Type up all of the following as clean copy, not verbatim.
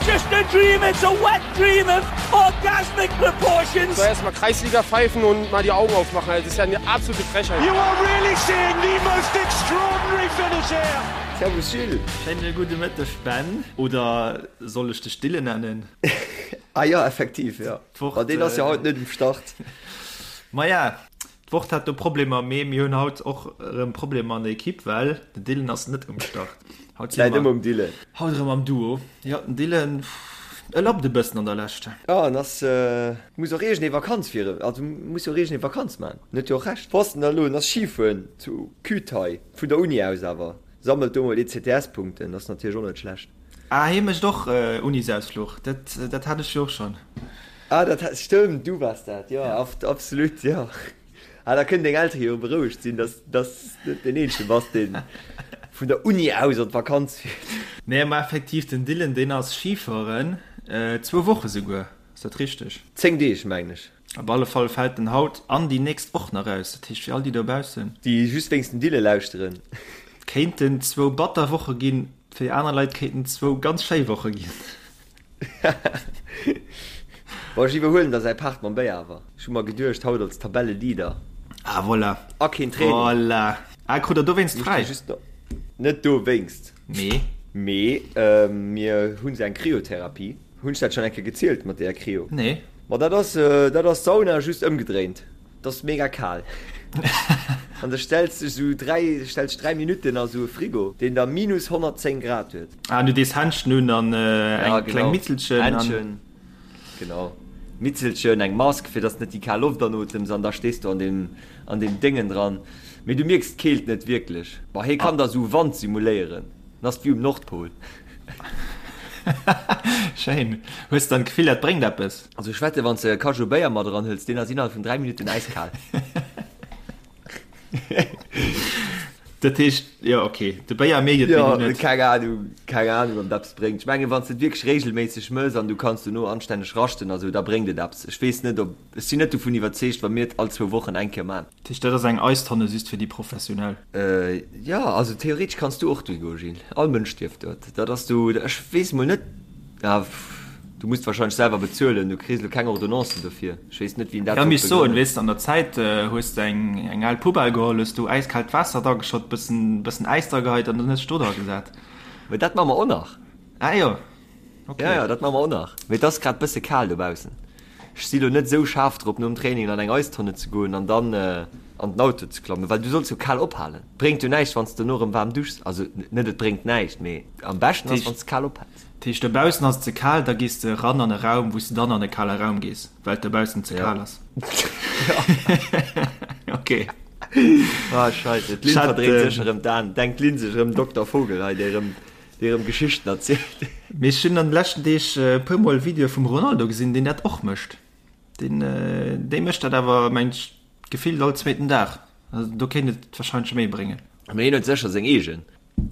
just a dream, it's a wet dream of orgasmic proportions. So erstmal Kreisliga pfeifen und mal die Augen aufmachen. Das ist ja eine absolute Frechheit. You are really seeing the most extraordinary finish here. Servus Gilles. Schéine gudde Mëtteg Ben, oder soll ech dech Dylan nennen? Ah jo, effektiv, jo. D'Wort, Ma deen ass jo haut net um Start. Maja, D'Wort hat do Problemer, mee mir hunn haut och erëm Problemer an der Equipe, well den Dylan ass net um Start. Haut si Läit mer ëmmer um Dylan. haut erëm am Duo. Jo, den Dylan, e lappt e bëssen an der Lescht. Jo, en ass, muss och iergendee Vakanz fir, also muss jo och iergendee Vakanz man. En huet jo och Recht. Wou ass en da elo? En ass Schifueren zu Kühtai, vun der Uni aus awer. Sammelt do mol ECTS-Punkten, ass natierlech och net schlecht. Ah, hie mécht och Unisausfluch, dat, dat hat ech jo och schonn. Ah, dat hat, stëmmt, du waars dat, jo, absolut, jo. Ah, da kënnen deng Eltere jo berouegt sinn, dass, dass s net deen Eenzege bass, dee vun der Uni aus an d'Vakanz fiert. Nee, ma effektiv, den Dylan, deen ass Schifueren, zwou Woche souguer, ass dat richteg? 10 Deeg, mengen ech. Op alle Fall fält en haut an déi nächst och nach aus, dat heescht fir all déi dobaussen. Déi just wéinst dem Dylan lauschteren. Kéinten zwou batter Woche ginn, fir aner Leit kéinten zwou ganz schéi Woche ginn. Bon, ech iwwerhuelen da säi Part mam Béier awer. Ech hu mer geduecht, haut als Tabelleleader. Ah, voilà. A keen Training. Voilà. Ah, krut der dowéinst fräi? Net dowéinst. Mee? Mee mir hu se eng Kryotherapie. Hunn ech dat schonn eng Kéier gezielt mat deeër Kryo? Nee. Ma dat ass, dat ass Sauna just ëmgedréint. Et ass mega kal. An da stells dech esou 3, stells dech 3 Minutten a sou e Frigo, deen da minus 110 Grad huet. Ah, du dees Händschen un an Ja, eng kleng genau. Mitzelchen an. Händschen, genau. Mitzelchen, eng Mask, fir dass net déi kal Loft anotems an da stees du an deem, an deem Déngen dran. Mee du mierks d'Keelt net wierklech. Bah, hie kann da sou Wand simuléieren. Dann ass et wéi um Nordpol. Schéin. Hues dann d'Gefill, dat bréngt eppes? Also ech wette wann s de e Kajou Béier mat eran hëls, deen ass innerhalb vun 3 Minutten äiskal. Dat heescht, jo ok, de Béier mierkt et, mee Jo, du net. keng Ahnung, keng Ahnung ob et eppes bréngt. Ech mengen wann s de et wierklech regelméisseg mëss an du kanns dono anstänneg raschten a sou, da bréngt et eppes. Ech weess net ob, ech sinn net dovun iwwerzeegt wa mir et all zwou Wochen eng Kéier man. Dat heescht dat ass eng Eistonne just fir déi Professionell? Jo, also theoretesch kanns du och dohi goen, Gilles. All Mënsch dierf dort. Dat ass du, ech weess mol net, ah, du musst wahrscheinlech selwer bezuelen, du kriss elo keng Ordonnance dofir. Ech weess net, wien dat Ja, sollt misst soen, begrënnen. weess de, an der Zäit hues de eng, eng al Poubelle geholl, hues du äiskaalt Waasser drageschott, bëssen, bëssen Äis drageheit an dann hues de do dragesat. Mee dat maache mer och nach. Ah jo, ok. Ja, ja, dat maache mer och nach. Mee et ass grad bësse kal dobaussen. Ech si lo net esou schaarf drop, nom Training an eng Eistonne ze goen an dann an den Auto ze klammen, well du solls jo kal ophalen. Bréngt jo näischt, wann s de dono erëm waarm duschs. Also net et bréngt näischt, mee am beschten ass, wann s de kal ophäls. Dat heescht, dobaussen ass et ze kal, da gees de eran an e Raum, wou s de dann an e kale Raum gees, well et dobaussen ze Ja. kal ass. Ok. Ah, scheisse, d'Lynn Ech hat, verdréint sécher erëm d'Aen. Denkt d'Lynn sech erëm Dokter Vogel hei, dee erëm, dee erëm Geschichten erzielt. Mee ech hunn an de leschten Deeg e puer mol Videoe vum Ronaldo gesinn, deen dat och mécht. Deen, dee mécht dat awer, mengt ech, gefillt all zweeten Dag. Also do kéint et warscheinlech méi bréngen. Mee hien huet sécher seng eegen.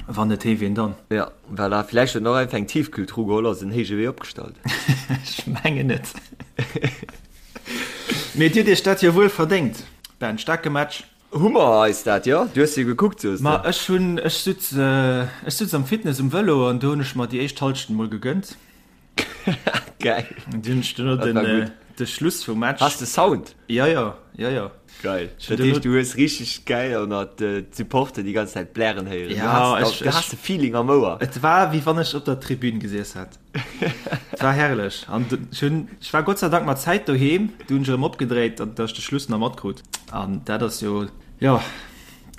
Wann net hee, wien dann? Jo, voilà. Villäicht huet en och einfach eng Tiefkühltruh geholl a se en héije Wee opgestallt. Ech mengen net. Mee dir hutt iech dat jo wuel verdéngt, Ben. Staarke Match. Hu mer eis dat, jo? Du hues jo gekuckt, soos de. Ma ech hunn, ech sutz, ech sutz am Fitness um Vëlo an do hunn ech mer déi éischt Hallschent mol gegënnt. Geil. An du hunn ech duerno Dat war den, gutt. de Schluss vum Match. Has de Sound? Jo, jo, jo, jo. Geil. Ech hunn Dat heescht, duerno. du hues richteg geil ënnert d'Supporter déi ganz Zäit blären héieren. Du Ja, has, ech, du has ech, de Feeling am Ouer. et war wéi wann ech op der Tribün gesiess hätt. Et war herrlech. An ech hunn, ech war Gott sei Dank mat Zäit doheem, du hunn ech erëm opgedréit, datt ech de Schluss nach matkrut. An dat ass jo, jo,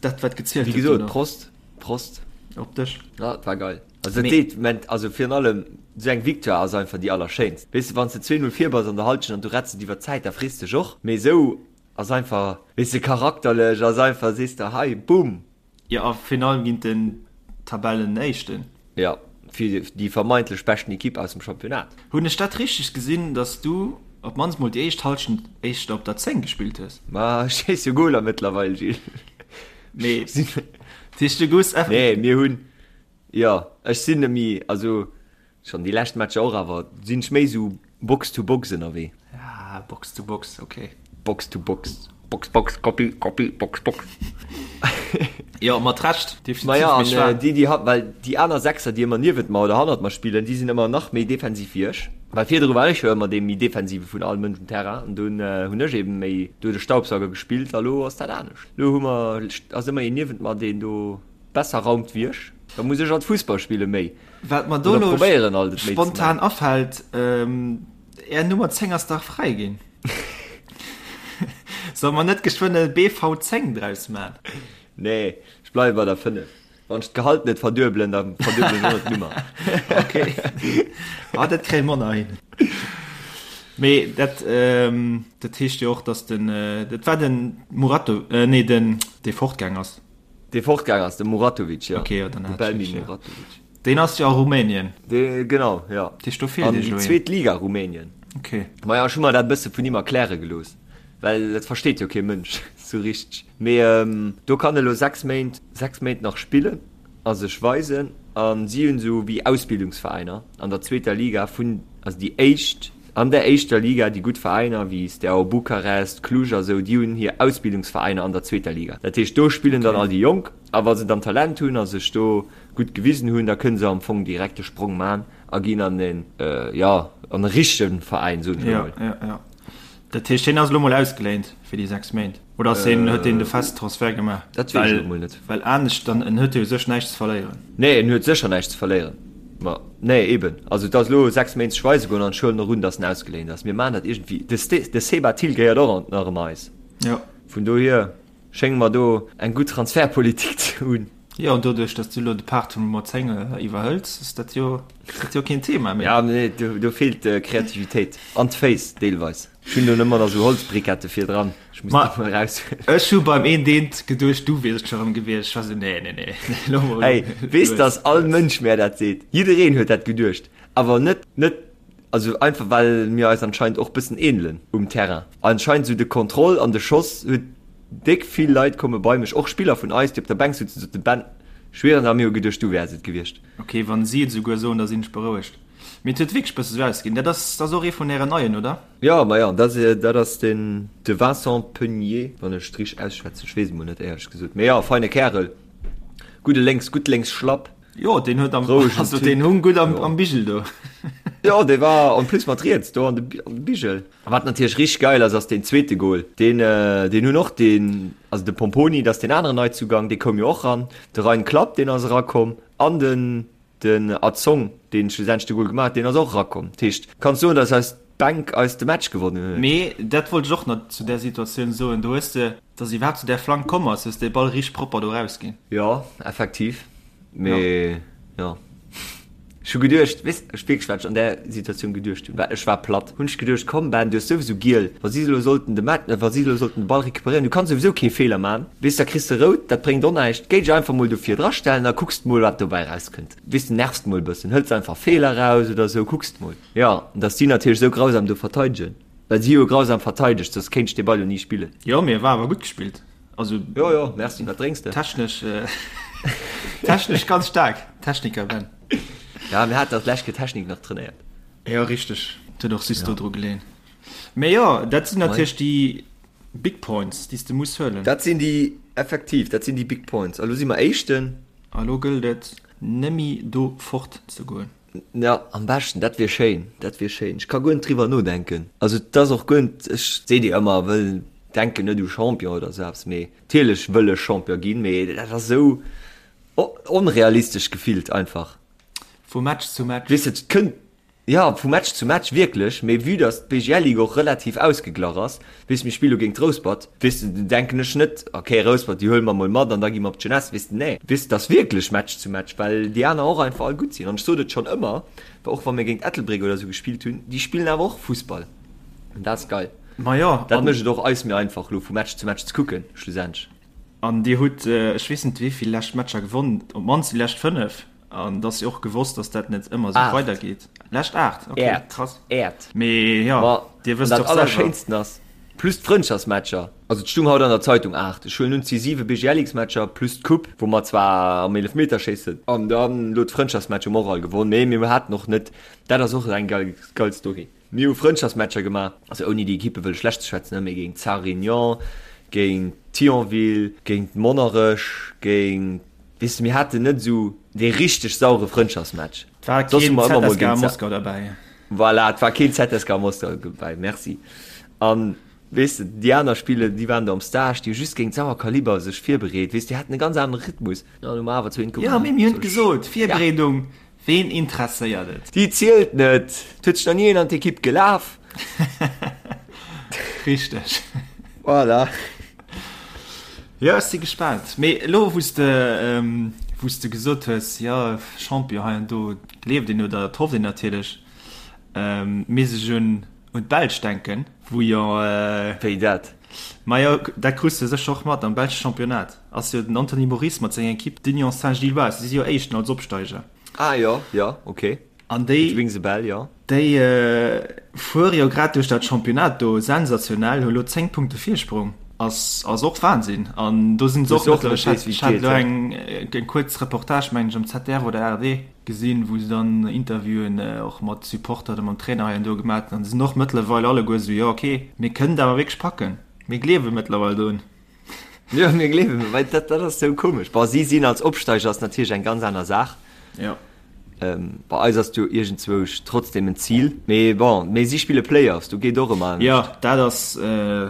dat wat gezielt Wéi huet gesot, duerno. Prost, Prost. Op dech. Ja, et war geil. Also dat deet, ment, also virun allem esou eng Victoire ass einfach déi allerschéinst. Weess de, wann s de 2, 0 vir bass an der Halschent an du retts et iwwer d'Zäit, da frees dech och. Mee esou ass einfach, weess de, charakterlech ass einfach, sees de, hei, boom, Jo, a virun allem géint den Tabellenéischten. Jo, fir déi vermeintlech beschten Ekipp aus dem Championnat. Hunn ech dat richteg gesinn, dass du op d'mannst mol déi éischt Hallschent éischter op der 10 gespillt hues? Ma ech schéiss jo Goler mëttlerweil, Gilles. Mee dat heescht, du goufs eff. Nee, mir hunn, jo, ech sinn net méi, also schonn déi lescht Matcher och, awer sinn ech méi esou Box to Box ënnerwee. Ah, Box to Box, ok. Box to Box, Box, Box, Copy, Copy, Box, Box. Jo, mat Recht, definitiv. Ma ja, an déi, déi hat, well déi aner Sechser, déi ëmmer niewent mer oder hannert mer spillen, déi sinn ëmmer nach méi defensiv wéi ech. Well virdru war ech jo ëmmer dee méi defensive vun all Mënsch um Terrain an dunn hunn ech eben méi do de Staubsauger gespillt a lo ass dat anescht. Lo hu mer, ass ëmmer een niewent mer, deen do besser raumt wéi ech. Da muss ech alt Fussball spille méi. Wat mer do Oder lo probéieren alt et méi ze spontan maachen. afält, Är Nummer 10 ass dach fräi ginn. Solle mer net geschwënn e BV 10 draus man? Nee, ech bleiwe bei der 5. Wann ech d'Gehalt net verduebelen, da verduebelen ech och net d'Nummer. Ok, ah, dat kréie mer nach hin. Mee dat, dat heescht jo och, dass den, dat war den Murato, nee, den, dee fortgaang ass. Dee fortgaang ass, de Muratovic, jo. Ok, jo, dann De hat ech Belmin richteg, jo. Muratovic. Deen ass jo a Rumänien. Dee, genau, jo. Dat heescht, do feelt An iech déi elo een. zweet Liga Rumänien. Ok. Maja, ech hu mer dat e bësse vun him erkläre gelooss, well dat versteet jo kee Mënsch sou richteg. Mee do kann e lo 6 Méint, 6 Méint nach spillen a sech weisen. A si hunn esou wéi Ausbildungsveräiner an der zweeter Liga vun, also déi éischt, an der éischter Liga, déi gutt Veräiner wéi Steaua Bukarest, Cluj a sou, déi hunn hir Ausbildungsveräiner an der zweeter Liga. Dat heescht, do spillen dann Ok. all déi Jonk a wa se dann Talent hunn a sech do gutt gewisen hunn, da kënne se am Fong direkt de Sprong man a ginn an en, jo, an e richtege Veräin, soen ech elo Jo, mol. jo, jo. Dat heescht, hien ass elo mol ausgeléint fir déi 6 Méint oder ass hien, huet hien de fest Transfert gemaach? Dat weess ech elo mol net. Well anescht dann, en huet jo u sech näischt ze verléieren. Nee, en huet sécher näischt ze verléieren. Ma nee, eben. Also et ass elo 6 Méint sech weise goen an ech huelen och un, datt en ausgeléint ass. Mir maachen dat iergendwéi. De Ste, de Seba Thill gehéiert och nach ëmmer eis. Jo. Vun dohier schénge mer do eng gutt Transfertpolitik ze hunn. Jo, an doduerch, datt du elo de Part vum Nummer 10 iwwerhëls, ass dat jo, ass dat jo keen Thema méi. Ja, nee, do, do feelt d'Kreativitéit an d'Féiss deelweis. Ech hunn do nëmmer nach esou Holzbrikette virdran. Ech muss Ma déi mol eraushuelen. ech hu beim een deent geduecht, du wiers et scho rëm gewiescht. Ech war esou, nee, nee, nee, elo mol Hey, weess, lues, dass all lues. Mënsch mär dat seet. Jiddereen huet dat geduecht. Awer net, net, also einfach well mir eis anscheinend och bëssen ähnelen um Terrain. Anscheinend esou de Contrôle an de Schoss huet Déck vill Leit komme bei mech, och Spiller vun eis, déi op der Bänk sutzen, soten, Ben, schwieren, a mir hu geduecht, du wäers et gewiescht. Ok, wann si et esouguer soen, da sinn ech berouegt. Mee et huet wierklech bësse sou ausgesinn. Dat ass, dat ass och ee vun ären Neien, oder? Jo, ma jo, dat, dat ass den, de Vincent Peugnier, wann ech et richteg ausschwätzen, ech weess et mol net, éierlech gesot. Mee jo, feine Kärel, gudde lénks, gutt lénks Schlapp. Jo, deen huet am, Rouegen also Typ. deen hung gutt am, Jo. am Bigel do. Jo, dee war en plus mat riets do an de, an de Bigel. A wat natierlech richteg geil ass, ass deen zweete Goal. Deen, deen hunn och deen, also de Pomponi, dat ass deen aneren Neizugang, dee koum jo och ran. De Rain Klapp, deen ass erakomm an den, den Azong, deen schlussendlech de Goal gemaach huet, deen ass och erakomm. Dat heescht, kanns soen, dass eis Bänk eis de Match gewonnen huet. Mee dat wollt ech och nach zu där Situatioun soen. Do hues de, dass iwwerhaapt zu där Flank komm ass, hues de Ball richteg propper do rausginn. Jo, effektiv. Mee jo, ech hu geduecht, weess, ech wierklech wat ech an där Situatioun geduecht hunn, well ech war platt, hunn ech geduecht, komm Ben, du hues souwisou giel, wa si elo sollten de Match, wa si elo sollten de Ball recuperéieren, du kanns souwisou kee Feeler man, weess, da kriss de rout, dat bréngt och näischt, géi dech einfach mol do vir dra stellen a kucks mol wat dobäi rauskënnt, weess, nervst mol e bëssen, hëls einfach Feeler raus oder sou, kucks mol. Jo, an dass si natierlech esou grausam do verteidegen, well si hu jo grausam verteidegt, soss kéint ech dee Ball jo ni spillen. Jo, mee e war awer gutt gespillt. Also jo jo merci wat drénks de? Technesch äh, technesch ganz stark Techniker Ben. Ja mir hat dat lescht Technik nach trainéiert. Ja richteg huet och sis do dru geleen. Mee jo dat sinn natierlech déi Big Points déi s de muss huelen. Dat sinn déi effektiv dat sinn déi Big Points. A lo si mer Éischten. A lo gëllt et nëmme do fort ze goen. Ja, am beschten, dat wier schéin, dat wier schéin. Ech ka guer net driwwer nodenken. Also et ass och guer net, ech seet dir ëmmer, wëll, denken net u Champion oder esou eppes, mee natierlech wëll ech Champion ginn, mee dat ass esou onrealistesch gefillt einfach. Vu Match zu Match. Weess de, et kënnt, jo, vu Match zu Match wierklech, mee vue dass d'BGL-Ligue och relativ ausgeglach ass, Weess, mir spille géint Rouspert, weess de, denken ech net, ok, Rouspert, déi huele mer mol mat an da gi mer op d'Jeunesse, weess de, nee, weess de, et ass wierklech Match zu Match, well déi aner och einfach all gutt sinn. An ech sot et schonn ëmmer, och wa mir géint Ettelbréck oder esou gespillt hunn, déi spillen awer och Fussball an dat ass geil. Ma jo, Dat mécht et och eis méi einfach, elo vu Match zu Match ze kucken, schlussendlech. An Dir hutt, ech weess net wéi vill lescht Matcher gewonnen, op d'mannst déi lescht 5. An et ass jo och gewosst, dass dat net ëmmer esou weidergeet. Lescht 8, ok, krass. Äert. Mee jo, Ma Dir wësst dat och selwer. Allerschéinsten ass, plus d'Frëndschaftsmatcher, also et stung haut an der Zeitung 8, ech huelen un, et si 7 BGLX-Matcher plus d'Coupe, wou mer zwar am Eelefmeterschéissen an dann elo d'Frëndschaftsmatch hu mer och all gewonn, mee mir haten och net, dat ass och eng geil, geil Story, mir hu Frëndschaftsmatcher gemaach, also ouni déi Ekippe wëlle schlecht ze schwätzen, mee géint Sarre Réunion, Géint Thionville, géint Monnerech, géint, weess de, mir haten net esou dee richteg saure Frëndschaftsmatch. Et war keen ZSKA Moskau derbäi. Voilà, et war keen ZSKA Moskau dobäi, merci. An, weess de, déi aner Spiller, déi waren do am Stage, déi hu just géint sauer Kaliber sech virbereet, weess de, déi haten e ganz anere Rhythmus. An hu mer awer zu eent gewonnen. Jo, mee mir hunn et gesot, Virbereedung, Ween interesséiert et? Déi zielt net! Et huet sech nach ni een an d'Ekipp gelaf. Richteg. Voilà. Jo, ech si gespaant. Mee elo, wou s de, wou s de gesot hues, jo, Champion hei an do, gleeft een oder et hofft een natierlech, misst ech un un d'Belsch denken, wou jo. Wéi dat? Majo, dat krus de sécher och mat, am belsche Championnat ass jo den Anthony Moris mat senger Ekipp d'Union Saint-Gilloise, si si jo Éischten als Opsteiger. Ah jo, jo, ok. An déi. It rings a bell, jo. Déi fuere jo grad duerch dat Championnat do sensationell, hu lo 10 Punkte Virsprong. Ass ass och Wahnsinn. An do sinn se och mëttlerweil, ech hat elo eng eng kuerz Reportage, mengen ech, am ZDF oder ARD gesinn, wou se dann Interviewen och mat Supporter oder mam Trainer hei an do gemaat hunn. An se sinn och mëttlerweil alleguer esou, jo ok, mir kënnen et awer wierklech packen. Mir gleewe mëttlerweil drun. Jo, mir gleewen, well dat, dat ass sou komesch. Bon, si sinn als Opsteiger ass natierlech eng ganz aner Saach. Jo. Ähm, bei eis ass jo iergendzwousch trotzdem en Zil. Mee bon, mee si spille Playoffs, do geet och ëmmer anescht. Jo, dat ass äh,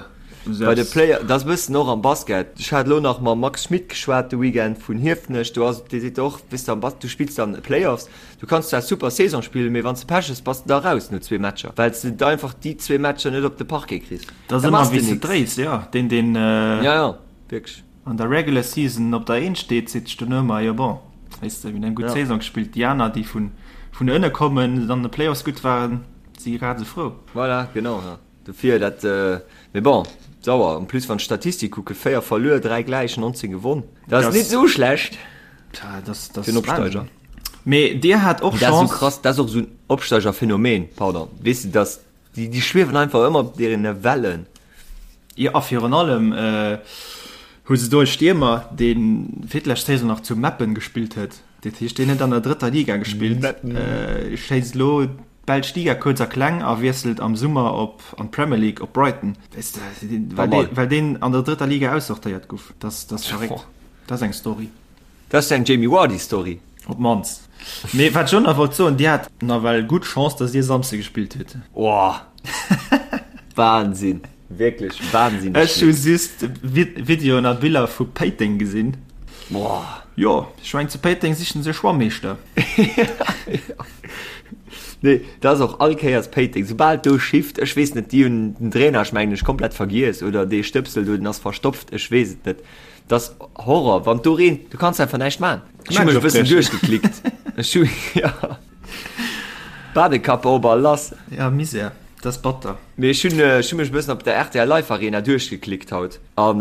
Bei de Play, dat ass e bëssen och am Basket. Ech hat elo nach mam Max Schmit geschwat de Weekend vun Hiefenech. Do ass, dee seet och, weess de, am Bas, du spills dann Playoffs, du kanns zwar super Saison spillen, mee wann s de Pech hues, bass de da raus no zwee Matcher, well s de einfach déi zwee Matcher net op de Parquet kriss. Dat ass ëmmer wéi s de dréis, jo. Deen, deen ja, ja, wierklech. an der Regular Season op der Eent steet, seet sech dono ëmmer, jo bon, weess de, mir hunn eng gutt ja. Saison gespillt. Déi aner, déi vun, vun ënne kommen, an de Playoffs gutt waren, si grad esou frou. Voilà, genau, ja. Dofir dat, mee bon, sauer. En plus, wann d'Statistik kucke, 4 verluer, 3 gläich, 19 gewonn. Dat ass net esou schlecht dat ass, dat fir en Opsteiger. Mee Dir hat och Chance. Dat ass esou krass, dat ass och esou en Opsteigerphänomen, pardon, weess de, dass Déi, déi schwiewen einfach ëmmer op deene Wellen. Jo, a virun allem hu se do e Stiermer, dee fir d'lescht Saison nach zu Meppen gespillt huet. Dat heescht, deen huet an der drëtter Liga gespillt, schéisst elo d'belsch Liga kuerz a kleng a wiesselt am Summer op an d'Premier League op Brighton. Weess de, well dee, well deen an der drëtter Liga aussortéiert guff. Dat ass verréckt. Dat ass eng Story. Dat ass eng Jamie Vardy Story. Op d'mannst. Mee wat ech och nach wollt soen, Dir hat nawell gutt Chance, dass Dir Samsde gespillt hutt. Oh! Wahnsinn! Wierklech wahnsinneg Ech hu just Videoen a Biller vu Péiteng gesinn. Boah! Jo, ech mengen zu Péiteng sichen se e Schwammeeschter. Nee, dat ass och all Kéiers Péiteng. Soubal do schifft, ech weess net, déi hunn den Drainage, mengen ech, komplett vergiess oder dee Stëpsel do, den ass verstopft, ech weess et net. Das Horror, wann do reent, du kanns einfach näischt man. Ech hu mech e bëssen duerchgeklickt. Ech hu ja. Badekappe op a lass. Ja, Misär, dat ass batter. Mee ech hunn ech hu mech e bëssen op der rtl Live Arena duerchgeklickt haut an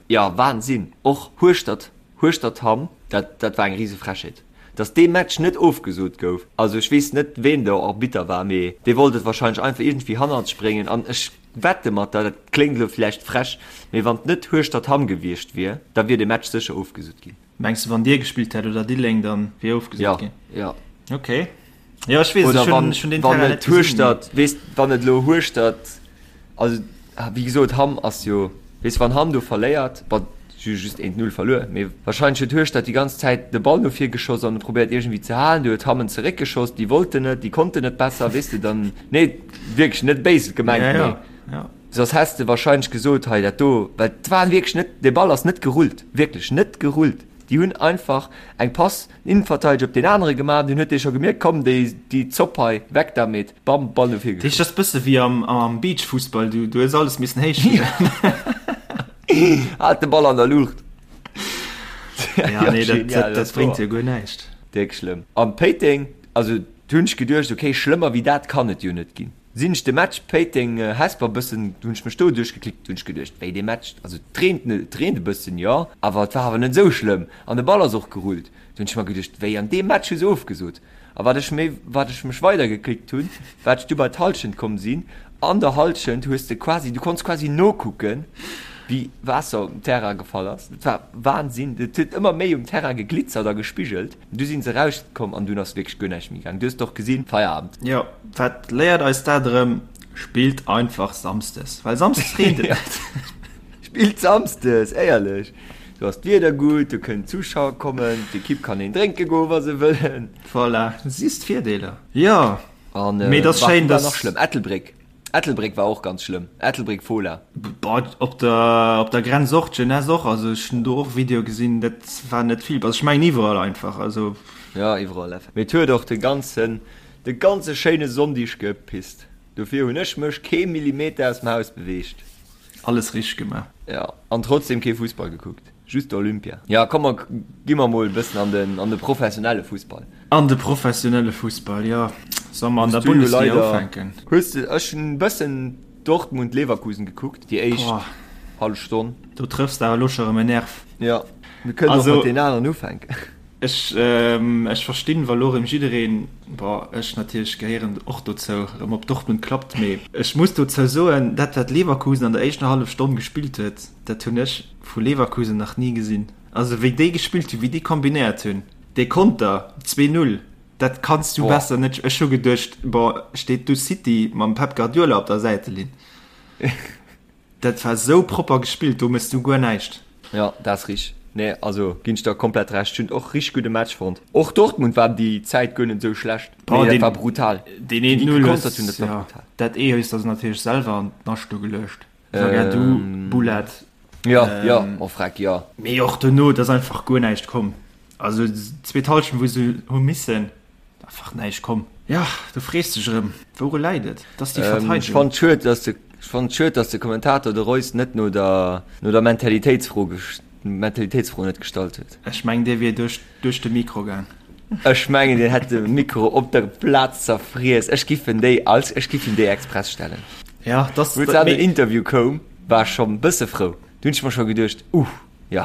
ja, Wahnsinn. Och Hueschtert, Hueschtert-Hamm, dat dat war eng rise Frechheet, dass dee Match net ofgesot gouf. Also ech weess net ween do Arbitter war, mee dee wollt et wahrscheinlech einfach iergendwéi hannert sech bréngen an ech Wette mat der, dat kléngt elo vläicht frech, mee wann et net Hueschtert-Hamm gewiescht wier, da wier de Match sécher ofgesot ginn. Mengs de wann Dir gespillt hätt oder Diddeleng, dann wier ofgesot ginn? Jo, jo. Ok. Jo, ech weess, ech hunn, ech hunn deen Terrain net gesinn. Hueschtert, weess, wann et elo Hueschtert, also wéi gesot, Hamm ass jo, weess, wann Hamm do verléiert, bon, si hu just 1, 0 verluer, mee wahrscheinlech huet Hueschtert déi ganz Zäit de Ball no vir geschoss an probéiert iergendwéi ze halen, du huet Hamm en zeréckgeschoss, déi wollten net, déi konnten net besser, weess de, dann, nee, wierklech net béis gemengt, Ja, mee ja, ja. soss häss de wahrscheinlech gesot, hei dat do, well et war wierklech net, de Ball ass net gerullt, wierklech net gerullt, déi hunn einfach eng Pass, den Innenverteidiger op deen anere gemaach, dunn huet dee scho gemierkt, komm déi, déi Zopp hei, weg damit, bam, Ball no vir Dat heescht, geschoss. dat ass bësse wéi am, am Beachfussball, du, du hues alles missen héich spillen. Haalt de Ball an der Luucht. Ja, nee, dat, dat, dat bréngt jo guer näischt. Déck schlëmm. An Péiteng, also du hunn ech geduecht, okay, schlëmmer wéi dat kann et jo net ginn. Sinn ech de Match Péiteng, Hesper bëssen, hunn ech mech do duerchgeklickt, hunn ech geduecht, wéi dee Match, also et reent, et reent e bëssen, jo, awer et war awer net esou schlëmm an de Ball ass och gerullt. Du hunn ech mer geduecht, wéi an deem Match hu se ofgesot. A wat ech méi, wat ech mech weidergeklickt hunn, wat ech du bei d'Hallschent komm sinn, an der Hallschent hues de quasi, du konns quasi nokucken, wéi Waasser um Terrain gefall ass. Dat war Wahnsinn. Et huet ëmmer méi um Terrain geglitzert a gespigelt. Du sinn se rauskomm an dunn ass wierklech guer näischt méi gaang. Du hues et och gesinn, Feierabend. Jo, wat léiert eis dat erëm? Spillt einfach Samsdes, well Samsdes reent et net. Spillt Samsdes, éierlech. Do ass d'Wieder gutt, do kënnen Zuschauer kommen, d'Ekipp kann een drénke goen, wa se wëllen. Voilà, siehst d'Virdeeler. Jo, An mee et ass wat schéin, war dass. nach schlëmm? Ettelbréck. Ettelbréck war och ganz schlëmm. Ettelbréck Fola. Boah, op der, op der Grenz och, d'Jeunesse och. Also ech hunn do och Videoe gesinn, dat war net vill. Also ech mengen iwwerall einfach, also. Jo, iwwerall effektiv. Mee et huet och de ganzen, de ganze schéine Sonndig gepisst. Dofir hunn ech mech kee Millimeter aus dem Haus beweegt. Alles richteg gemaach. Jo, an trotzdem kee Fussball gekuckt, just Olympia. Jo, komm mer gi mer mol e bëssen an den, an de professionelle Fussball. An de professionelle Fussball, jo. Solle mer an der Bundesliga ufänken? Hues de, ech hunn e bëssen Dortmund-Leverkusen gekuckt, déi éischt hallef Stonn. Do trëffs de awer elo scho erëm en Nerv. Jo, mir kënnen och mat deenen aneren ufänken. Ech, ech verstinn, wa lo erëm jiddereen, bon, ech natierlech gehéieren och dozou, erëm op Dortmund klappt, mee ech muss dozou soen, dat wat Leverkusen an der éischter hallef Stonn gespillt huet, dat hunn ech vu Leverkusen nach ni gesinn. Also wéi déi gespillt hunn, wéi déi kombinéiert hunn, dee Konter, 2, 0, dat kanns du besser net, ech hu geduecht, bon, steet du City mam Pep Guardiola op der Säitelinn. Dat war sou propper gespillt, do mëss du guer näischt. Jo, dat ass richteg. Nee, also ginn ech der komplett Recht. Ech hunn och richteg gudde Match fonnt. Och Dortmund war déi Zäit guer net esou schlecht. Boah, Mee dat deen, war brutal. deen Wéi déi 1-0 gekontert hues, hunn, dat war ja, brutal. dat ee hues der se natierlech selwer an d'Nascht do geluecht. Zagadou, Bulat. Jo, jo, oh freck, jo. Mee och dono, et ass einfach guer näischt komm. Also zweet Hallschent, wou se hu missen, Einfach näischt komm. Ja, du frees dech erëm, wouru läit et? Et ass déi Ech Verteidegung. fannen schued, dass de, ech fannen schued, dass de Kommentator de Reus net no der, no der Mentalitéitsfro, Mentalitéitsfro net gestallt huet. Ech mengen, dee wier duerch, duerch de Mikro gaang. Ech mengen, deen hätt de Mikro op der Plaz zerfriess. Ech giff en déi als, ech giff him déi express stellen. Ja, dass, Wou an den Interview koum, war ech schonn bësse frou. Du hunn ech mer scho geduecht, Uh, jo,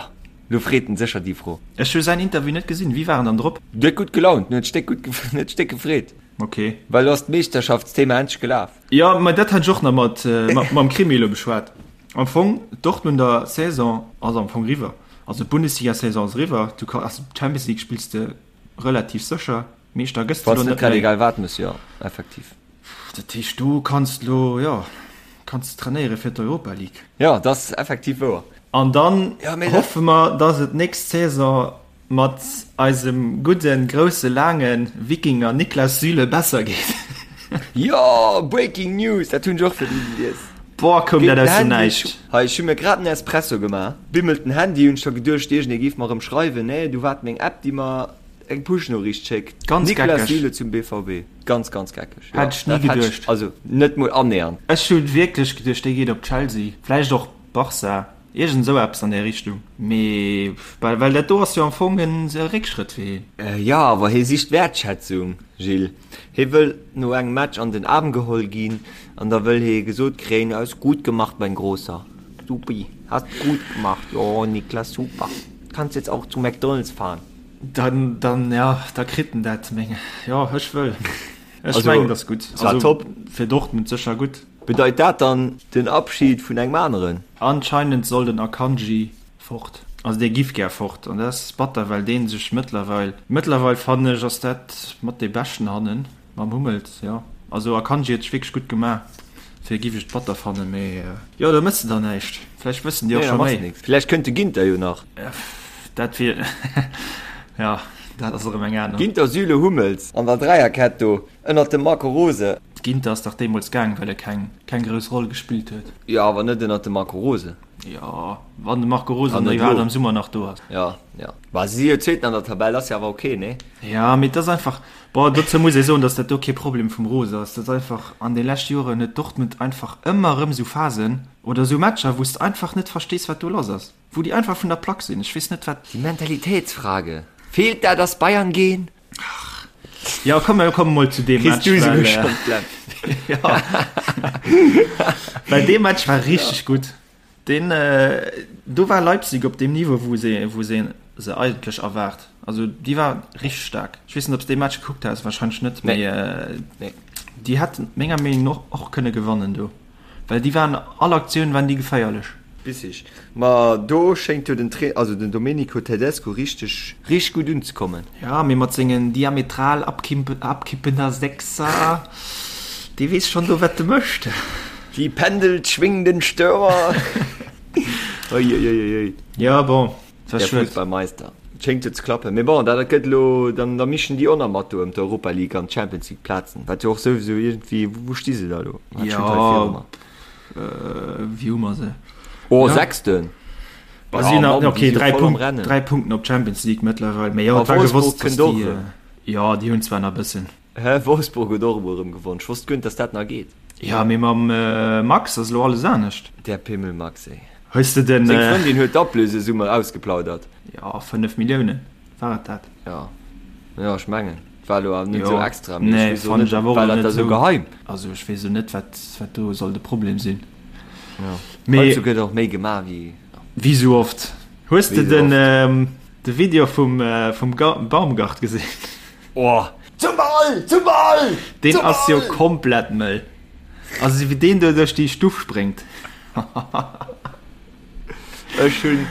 lo freet en sécher déi Fro. Ech hu säin Interview net gesinn. Wéi war en dann drop? Huet gutt gelaunt, huet sech déck gutt, huet sech déck gefreet. Ok. Well lo ass d'Meeschterschaftsthema endlech gelaf. Jo, mä dat hat ech och nach mat, mam Krimi elo beschwat. Am Fong, d'Dortmunder Saison ass am Fong riwwer. Also d'Bundesliga-Saison ass eriwwer. Du ka, also d'Champions League spills de relativ sécher. Meeschter gëss de Wann elo s net net grad méi. egal wat muss, jo, effektiv. Dat heescht, du kanns elo, jo, kanns trainéiere fir d'Europa League. Jo, dat ass effektiv wouer. An dann Ja, mee dat. hoffe mer, dass et nächst Saison mat eisem gudden, grousse, laange Wikinger Niklas Süle besser geet. Jo, Breaking News, dat hunn ech och virdru gelies. Boah, koum Geet dat den aus dem Handy, Näischt. hei, ech hu mir grad en Espresso gemaach, bimmelt den Handy, hunn ech scho geduecht, iergendee géif mer erëm schreiwen. Nee, du war et meng App, déi mer eng Push-Noriicht schéckt. Ganz Niklas geckeg. Süle zum BVB. Ganz, ganz geckeg. Jo, Hätt ech ni dat hätt ech, geduecht. also net mol annähernd. Ech hu wierklech geduecht, dee geet op Chelsea, vläicht och Barca, iergend esou eppes an där Richtung. Mee well, well dat do ass jo am Fong en Réckschrëtt fir hien. Jo, awer hie sicht Wäertschätzung, Gilles. Hie wëll no engem Match an den Aarm geholl ginn an da wëll hie gesot kréien, Hast gut gemacht, mein Großer. Supi, hast gut gemacht. Jo, Niklas, super. Kannst jetzt auch zu McDonald's fahren. Dann, dann, ja, da kritt en dat, meng, jo, ech wëll. Ech Also, mengen, dat ass gutt. es war top. Fir Dortmund sécher gutt. Bedeit dat dann den Abschied vun engem aneren? Anscheinend soll den Akanji fort. Also dee giff gär fort an dat ass batter, well dee sech mëttlerweil, mëttlerweil fannen ech ass dat mat dee beschten hannen mam Hummels, jo. Also Akanji huet sech wierklech gutt gemaach, fir giff ech et batter fannen, mee jo do mëss de dann näischt. Vläicht wëssen déi och Nee, da scho machs méi. nix. Vläicht kënnt de Ginter jo nach. Dat wier, jo, dat ass erëm eng aner. Ginter, Süle, Hummels an der Dräierkett do ënnert dem Marco Rose. Ginter ass dach deemools gaang, well e keng keng grouss Roll gespillt huet. Jo, awer net ënnert dem Marco Rose. Jo, wann de Marco Rose An dann net iwwerhaapt elo. am Summer nach do ass. Jo, jo. Bah, si si jo Zweeten an der Tabell, ass jo awer ok, nee? Jo, mee et ass einfach, bon, dozou muss ee soen, datt dat do kee Problem vum Rose ass. Dat ass einfach, an de leschte Joren huet Dortmund einfach ëmmer erëm esou Phasen oder esou Matcher, wou s de einfach net verstees, wat do lass ass, wou déi einfach vun der Plack sinn. Ech weess net, wat. Die Mentalitätsfrage. Fehlt da das Bayern-Gen? Jo, komm, mir komme mol zu deem Kriss Match, du well, esouguer schonn d'Läpp. ja. Well dee Match war richteg gutt. Deen, do war Leipzig op deem Niveau, wou se, wou se se eigentlech erwaart. Also déi war richteg staark. Ech weess net, ob s de dee Match gekuckt has, warscheinlech net, Nee. mee Nee. déi hätten menger Meenung no och kënne gewannen do. Well déi waren, all Aktioun waren déi geféierlech. Bissig. Ma do schéngt jo den Trainer, also den Domenico Tedesco richteg, richteg gutt unzekommen. Ja, mee mat sengen diametral abkippender Sechser, dee weess schonn do wat e mécht. Die pendelschwingenden Stürmer. Uiuiuiui. Jo, bon, et war Der schued. Fussballmeister. Et schéngt jo ze klappen. Mee bon, dat gëtt elo, dann da mischen déi och nach mat do ëm d'Europa League an d'Champions League Plazen. Wat jo och souwisou iergendwéi, wou sti se da elo? Wat steet hei Jo, viru mer? wéi hu mer se? Oh, Ja. Sechsten. Ba Ja, si nach, Mann, déi okay, si jo 3 voll am Punkt, Rennen. 3 Punkten op d'Champions League mëttlerweil. Mee jo, A et war Wolfsburg gewosst, dass kënnt och déi, erëm. jo, déi hunn zwar nach e bëssen. Hä, Wolfsburg huet och emol erëm gewonn. Ech wosst guer net, dass dat nach geet. Jo, mee mam Max ass elo alles anescht. Der Pimmel Max, ey. Hues de den. Seng Frëndin huet d'Ablösesumme ausgeplaudert. Jo, 5 Milliounen, war et dat? Jo, jo, ech mengen, et war elo awer net Jo, esou extra, mee ech nee, weess och fannen net, ech awer och war elo dat net da sou esou. geheim? Also ech weess elo net, wat, wat do soll de Problem sinn. Jo, Mee. heiansdo gëtt och méi gemaach wéi. Wéi sou oft. Hues de Wéi sou den, oft. de Video vum, vum Baumgart gesinn? Oh! Zum Ball! Zum Ball! Deen Zum ass jo Ball! komplett mëll. Also wéi deen do duerch déi Stuff spréngt. Ech hunn,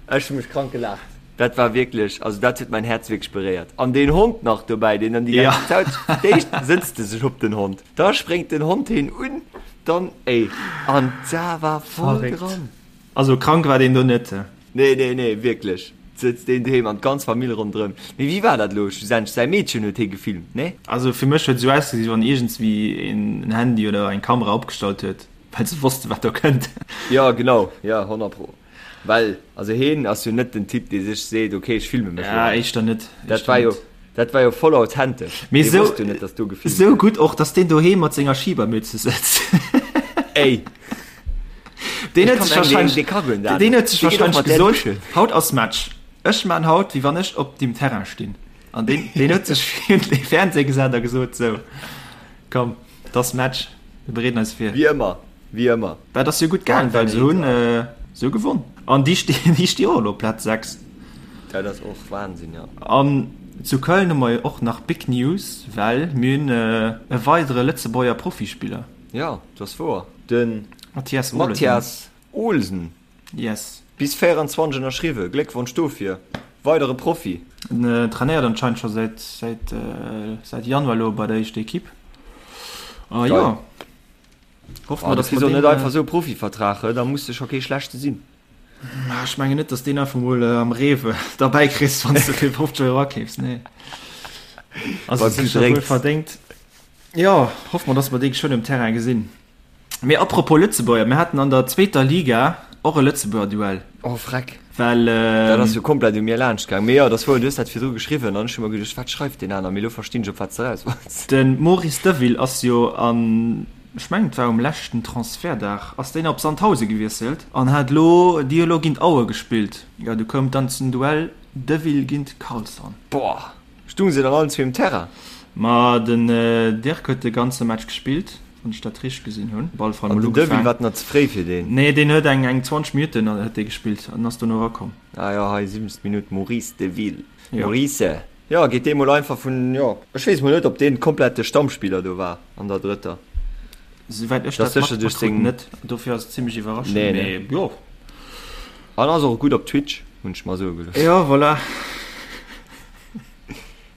ech hunn mech krank gelaacht. Dat war wierklech, also dat huet mäin Häerz wierklech beréiert. An deen Hond nach dobäi, deen dann déi Ja. ganze Zäit, d'éischt sëtzt e sech op den Hond, da spréngt den Hond heen un, dann, ey, an da war voll Verréckt. dran. Also krank war deen do net. Nee, nee, nee, wierklech. Sëtzt deen doheem an d'ganz Famill ronderëm. Mee wéi war dat elo schlussendlech? Säi Meedchen huet hie gefilmt, nee? Also fir mech huet et esou ausgesi wéi wann iergendswéi een en Handy oder eng Kamera opgestallt huet, well se wosste wat do kënnt. Jo, genau, jo, honnertpro. Well, also hien ass jo net den Typ, dee sech seet, ok, ech filme mech elo Ja, hei. éischter net, Dat éischter war jo, net. dat war jo voll authentesch. Mee Dee esou, wosst jo net, dass do gefilmt esou gëtt. gutt och, dass deen doheem mat senger Schibermütze sëtzt. Ey! Deen Ech huet kann sech mengen, wahrscheinlech, dee ka guer net deen anescht. huet sech Dee geet och wahrscheinlech mat där gesot, duschen. haut ass Match, ech man haut wéi wann ech op dem Terrain stinn. An deen, deen huet sech virun de Fernseh gesat a gesot, sou, komm, et ass Match, mir bereeden eis vir. Wéi ëmmer, wéi ëmmer. Dat ass jo gutt gaang, well se hunn, se hu gewonn. An déi stinn, déi sti och elo op Plaz 6. Dat ass och Wahnsinn, jo. An zu Köln hu mer jo och nach Big News, well mir hunn e weidere Lëtzebuerger Profispiller. Jo, dat ass wouer. De Mathias Olesen. Mathias Olsen. Yes. Bis 24 ënnerschriwwen. Gléckwonsch dofir. Weidere Profi. En trainéiert anscheinend scho säit säit säit Januar elo bei der éischter Equipe. A jo, hoffe mer, dass mer deen. Net einfach esou e Profivertrag, da muss de scho kee schlechte sinn. Ech mengen net, dass deen einfach mol am Rewe derbäi kriss, wann s de fir 50 Euro akeefs. Nee. Also sécher wuel verdéngt. Jo, hoffe mer, dass mer dee geschwënn um Terrain gesinn. Mee apropos Lëtzebuerger, mir haten an der zweeter Liga och e Lëtzebuerger Duell. Oh freck. Well. Dat ass jo komplett u mir laanscht gaang. Mee jo, dat ass wouer, du hues dat virdru geschriwwen an ech hu mer geduecht, wat schreift deen aner? Mee elo verstinn ech, op wat s de eraus wollts. De Maurice Deville ass jo an, ech mengen et war um leschten Transfertdag, ass deen op Sandhausen gewiesselt an hat elo, déi hu elo géint Aue gespillt. Jo, du koum dann zum Duell Deville géint Karlsson. Boah! Stung se dann allen zwee um Terrain? Ma den Dirk huet de ganze Match gespillt, wann ech dat richteg gesinn hunn. Op alle Fall An mol den Deville ugefaang. war nach ze fréi fir deen? Nee, deen huet eng eng 20 Minutten huet dee gespillt an ass dono erakomm. Ah jo, hei 7. Minutt, Maurice Deville. Jo. Maurice, jo, geet dee mol einfach vun, jo, ech weess mol net, ob deen komplett de Stammspiller do war an der drëtter. Souwäit ech Dat ass dat sécher duerch matkrut seng. net, dofir ass et zimmlech iwwerraschend, Nee, ne. mee jo. An ass och gutt op Twitch, hunn ech mer soe gelooss. Jo, voilà.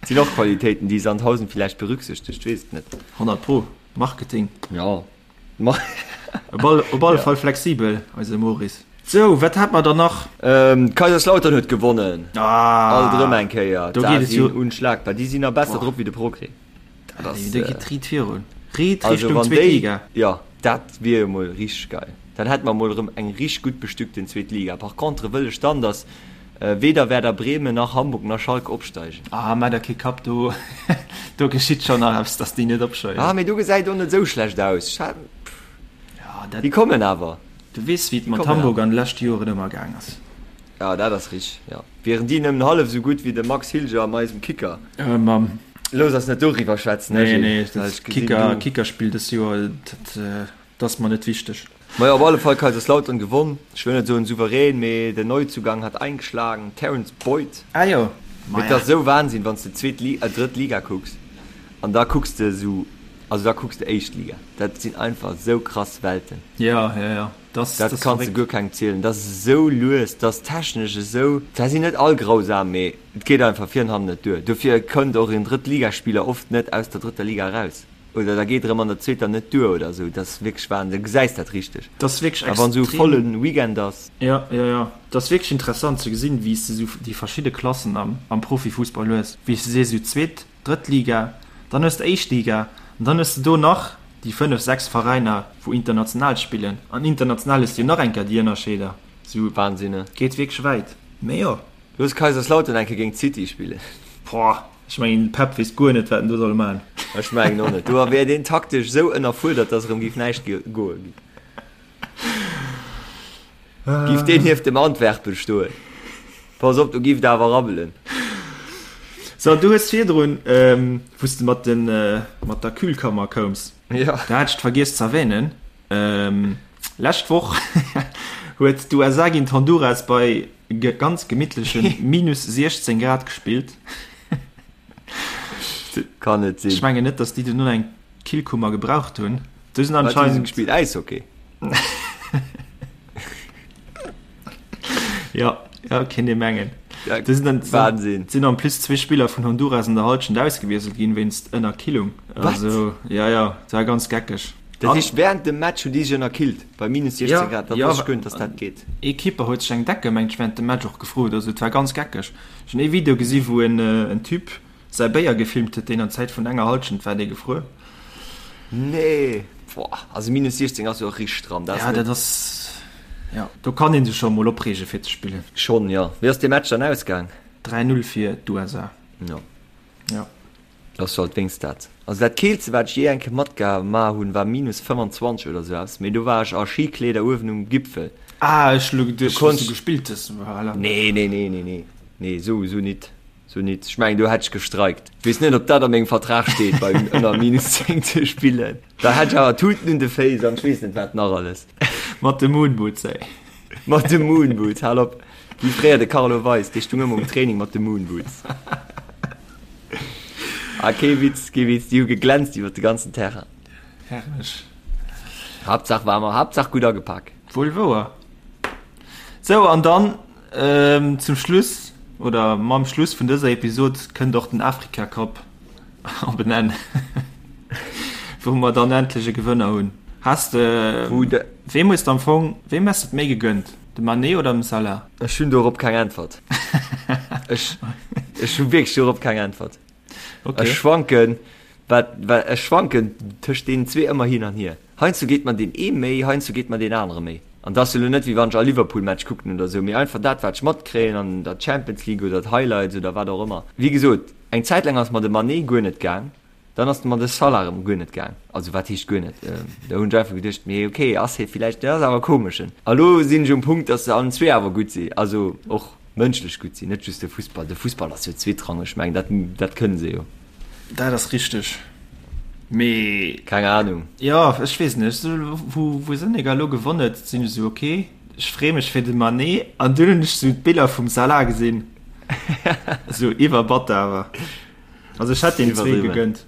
Sinn och Qualitéiten, déi Sandhausen villäicht berücksichtegt, weess et net. 100 pro. Marketing. Jo. Op all, op alle Fall flexibel, eise Maurice. Sou, wat hat mer dann nach? Kaiserslautern huet gewonnen. Ah! Alt erëm eng Kéier. Do geet et jo. Sinn unschlagbar. Déi sinn nach besser drop wéi de Progrès. Dat ass. Do geet riit virun. Riit Also Richtung wann zweet déi, Liga. jo, dat wier jo mol richteg geil. Dann hätte mer mol erëm eng richteg gutt bestückten zweet Liga. Par contre wëll ech dann, dass weder Werder Bremen nach Hamburg nach Schalke opsteigen. Ah, maach der kee Kapp, do, do geschitt schon nach eppes, dass déi net opsteigen. Ah, mee do gesäit och net esou schlecht aus. Ech hat, Ja, dat, déi kommen awer. du weess, wéi et Déi mat kommen Hamburg awer. an de leschte Joren ëmmer gaang ass. Ja, dat ass richteg, jo. Wieren déi nëmmen hallef esou gutt wéi de Max Hilger an eisem Kicker. Äh, mam. Looss eis net doriwwer schwätzen, Nee, Gilles, nee, well dat ech gesinn, Kicker, du. Kickerspill dës Joer, dat, dat ass mer net wichteg. Majo, op alle Fall Kaiserslautern gewonn. Ech wëll net soen souverän, mee den Neuzugang hat eingeschlagen, Terence Boyd. Ah jo, Mee et maja. ass esou Wahnsinn, wann s de zweet Li-, äh, drëtt Liga kucks an da kucks de esou, also da kucks de éischt Liga. Dat sinn einfach esou krass Welten. Ja, ja, ja. Das, Dat das kanns de guer kengem zielen. Dat ass esou lues, dat ass technesch esou. Zwar sinn net all grausam, mee et geet einfach vir an hannen net duer. Dofir kënnt och en Drëttligaspiller oft net aus der drëtter Liga eraus. Oder da geet erëm an der zweeter net duer oder esou. Dat ass wierklech Wahnsinn. Du gesäis dat richteg. Dat ass wierklech A wann esou e extrem. volle Weekend ass. Jo, jo, jo. Dat ass wierklech interessant ze gesinn, wéi s de esou déi verschidde Klassen am, am Profifussball hues. Wéi s de sees, esou zweet, drëtt Liga, dann hues de éischt Liga an dann hues de do nach déi fënnef, sechs Veräiner, wou international spillen. An international hues de jo nach eng Kéier déi Ënnerscheeder. Esou Wahnsinn, ne? geet wierklech wäit. Mee jo. Looss Kaiserslautern eng Kéier géint City spillen. Boah, ech mengen den Pep weess guer net wat en do soll man. Ech mengen och net. Do wär deen taktesch esou ënnerfuerdert, dass erëm géif näischt goe. Giff deen nieft dem Antwerpen stoen. Pass op, do giff et awer rabbelen. So, du hues virdrun, wou s de mat den, mat der Kühlkammer koums, Ja. da hat ech vergiess z'erwähnen, lescht Woch huet d'USA géint Honduras bei ganz gemittleche minus 16 Grad gespillt. Kann net sinn. Ech mengen net, dass déi duerno eng Killkummer gebraucht hunn. Do sinn Wat hu se anscheinend. gespillt? Äishockey? Ja, ja, kéint ee mengen. Ja, Do sinn dann, Wahnsinn. sinn en plus zwee Spiller vun Honduras an der Halschent ausgewiesselt ginn wéinst Ënnerkillung. Wat? Also, ja, ja, dat war ganz geckeg. Dat heescht, während dem Match hunn déi sech ënnerkillt bei minus 16 Ja, Grad. Dat ja, wosst ech guer net, dass dat geet. Ee Keeper huet sech eng Decke, mengt ech, während dem Match och gefrot. Also et war ganz geckeg. Ech hunn ee Video gesi wou en en Typ säi Béier gefilmt huet, deen an Zäit vun enger Halschent war dee gefruer. Nee, boah, also minus 16 ass jo och richteg stramm. Dat ass Ja, net. dat ass, ja, do kann ee sech scho mol opreege fir ze spillen. Schonn, jo. Wéi ass dee Match dann ausgaang? 3, 0 fir d'USA. Jo. Ja. Ass jo alt wéinst dat. Also dat keelste wat ech jee eng Kéier matgema hunn war minus 25 oder sou eppes, mee do war ech a Skikleeder uewen um Gipfel. Ah, ech hu lo geduecht Do wou s du konnt. gespillt hues, voilà. Nee, nee, nee, nee, nee, nee, sou, sou nit, sou nit. Ech mengen do hätt ech gestreikt. Ech weess net ob dat a mengem Vertrag steet bei ënner minus 10 ze spillen. Da hätt ech awer Tuten un de Féiss an ech weess net wat nach alles. Mat de Moonboots, ey. Mat de Moonboots, hal op. Wéi fréier de Carlo Weis, dee stung ëmmer um Training mat de Moonboots. Ah, kee Witz, kee Witz, déi hu geglänzt iwwer de ganzen Terrain. Herrlech. Haaptsaach war mer, Haaptsaach gutt agepak. Wuel wouer. Sou, an dann ähm, zum Schluss, oder mam Schluss vun dëser Episod kënnt och den Afrika Cup op en Enn, wou mer dann endlech e Gewënner hunn. Has de, Wou de. weem hues de am Fong, weem häss de et méi gegönnt? De Mané oder dem Salah? Ech hunn dorop keng Äntwert. Ech, ech hu wierklech dorop keng Äntwert. Okay. Ech schwanken, wat, wat, ech schwanken tëscht deenen zwee ëmmer hin an hier. Heiansdo geet mer deen ee méi, heiansdo geet mer deen anere méi. An dat ass jo elo net, wéi wann ech all Liverpool-Match kucken oder esou, mee einfach dat, wat ech matkréien an der Champions League oder d'Highlights oder wat och ëmmer. Wéi gesot, eng Zäit laang ass mer de Mané guer net gaang. Dann ass mer de Salah erëm guer net gaang. Also wat heescht guer net? Do hunn ech einfach geduecht, mee ok, ass hie villäicht, dat ass awer komeschen. A lo sinn ech um Punkt, datt se allen zwee awer gutt sinn, also och mënschlech gutt sinn, net just de Fussball. De Fussball ass jo zweetrangeg, ech mengen dat, dat kënne se jo. Dat ass richteg, mee. Keng Ahnung. Jo, ech weess net, wou, wou Senegal lo gewonn huet, sinn ech esou ok, ech freeë mech fir de Mané an dunn hunn ech esou d'Biller vum Salah gesinn, esou iwwerbatter awer. Also ech hätt den zwee gegönnt.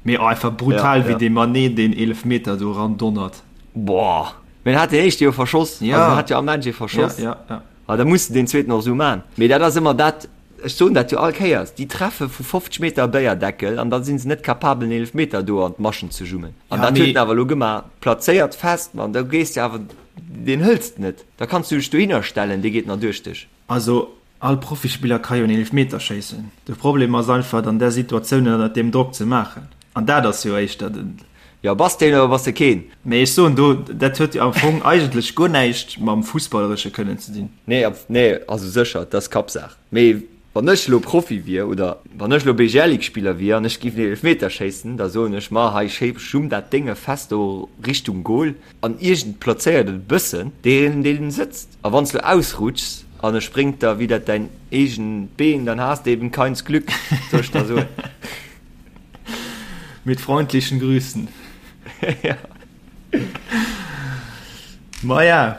Mee oh, einfach brutal ja, wéi ja. dee Mané deen Eelefmeter do ran donnert. Boah. Mee en hat den éischte jo verschoss. Ja. Also en hat jo am Match ee verschoss. Ja, ja, ja. Ah, da muss de den zweeten och esou man. Mee dat ass ëmmer dat, ech soen dat jo all Kéiers, déi treffe vu 50 Meter e Béierdeckel an da si se net capabel en Eelefmeter do an d'Maschen ze jummen. An Ja, dat huet mee en awer elo gemaach, plazéiert fest, man da gees de awer, deen hëls de net. Da kanns du dech dohinner stellen, dee geet nach duerch dech. Also All Profispiller ka jo en Eelefmeter schéissen. De Problem ass einfach, et an där Situatioun ënnert deem Drock ze maachen. An dat ass jo éischter den. Jo, bass de een oder bass de keen? Mee ech soen do, dat huet jo am Fong eigentlech guer näischt mam Fussballeresche kënnen ze dinn. Nee, nee, also sécher, dat ass Kappsaach. Mee wann ech elo Profi wier oder wann ech elo BGL-Ligue-Spiller wier an ech géif en Eelefmeter schéissen, da soen ech, ma hei, schumm dat Dénge fest do Richtung Gol. An iergend plazéiert et e bëssen deen deen sëtzt. A wanns du ausrutschs an e spréngt der widder däin eegent Been, dann has de eben keins Glück, soll ech der soen. Mit freundlichen Grüßen. Ja. Maja.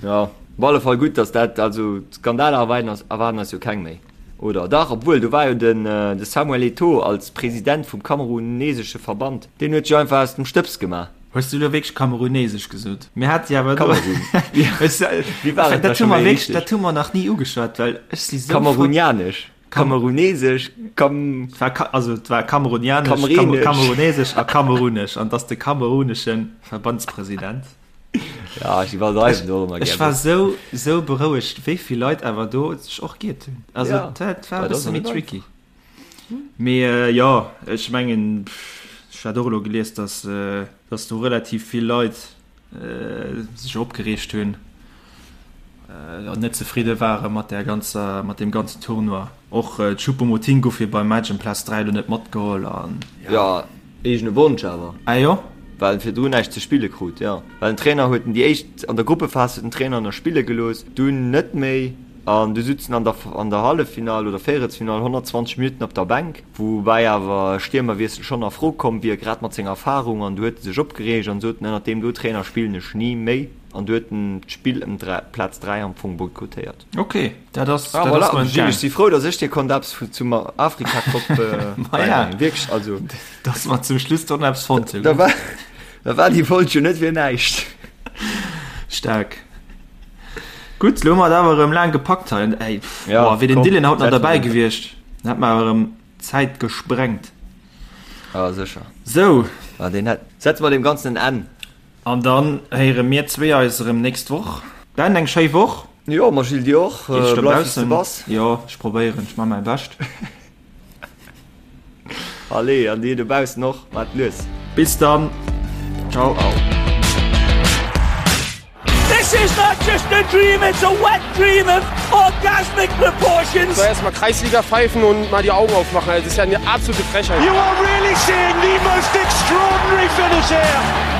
Ja, op alle Fall gutt, dass dat, also Skandaler erwaarden eis, erwaarden eis jo keng méi, oder? Dach, obwuel, do war jo den de Samuel Eto'o als President vum kamerunesesche Verband, deen huet sech einfach aus dem Stëbs gemaach. Hues du elo wierklech kamerunesesch gesot? Mir hate jo awer do. Kamerun. Wéi war et da Dat hu scho mer méi wierklech, richteg? dat hu mer nach ni ugeschwat, well ech si sou frou. Kamerunianesch. Kamerunesesch, Kam. Also et war kamerunianesch, kamerunesesch a kamerunesch an dass de kamerunesche Verbandspresident. Ja, ech iwwerdreiwen do ëmmer gär. Ech war sou, sou berouegt, wéi vill Leit awer do sech och giert hunn. Also ja. dat war e bësse méi tricky. Mee jo, ech mengen, ech hat och elo gelies, dass, dass do relativ vill Leit sech opgereegt hunn an net zefridde ware mat der ganzer, mat deem ganzen Tournoi. Och Choupo-Moting gouf jo beim Match ëm Plaz 3 elo net matgeholl an jo. Jo, eegene Wonsch awer. Ah jo? Well en virdrun näischt ze spille krut, jo. Well den Trainer huet en déi éischt, an der Gruppephas huet den Trainer en nach spille gelooss, dunn net méi an du sutz en an der an der Halleffinall oder Véierelsfinall 120 Minutten op der Bänk. Woubäi awer e Stiermerwiessel schonn a Fro komm wier, grad mat senger Erfarung. An du huet e sech opgereegt an sot, Ënnert deem do Trainer spillen ech ni méi. An du huet en d'Spill ëm Plaz 3 am Fong boykottéiert. Ok, dat ass ah, voilà. Gilles, ech si frou, datt ech dir konnt eppes zum Afrika-Cup bäibréngen. Wierklech, also. Datt mer zum Schluss doch nach eppes fonnt hunn. Da war, da war déi Folg jo net fir näischt. Staark. Gutt, lo hu mer et awer erëm laang gepackt hei. Ey, pff, ja, boah, wier den Dylan haut nach derbäi gewiescht, dann hätt mer awer erëm d'Zäit gesprengt. Ja, sécher. Sou. Ja, deen hätt. Setze mer deem Ganzen en Enn. An dann héiere mir zwee eis erëm nächst Woch. Ben, eng schéi Woch. Jo, ma Gilles, dir och. Bleif wéi s de bass. Jo, ech probéieren, ech man mäi Bescht. Allez, an dir dobaussen och, maat lues. Bis dann. Ciao. This is not just a dream, it's a wet dream of orgasmic proportions. So, erstmal Kreisliga pfeifen und mal die Augen aufmachen. Also, das ist ja eine absolute Frechheit. You are really seeing the most extraordinary finish here.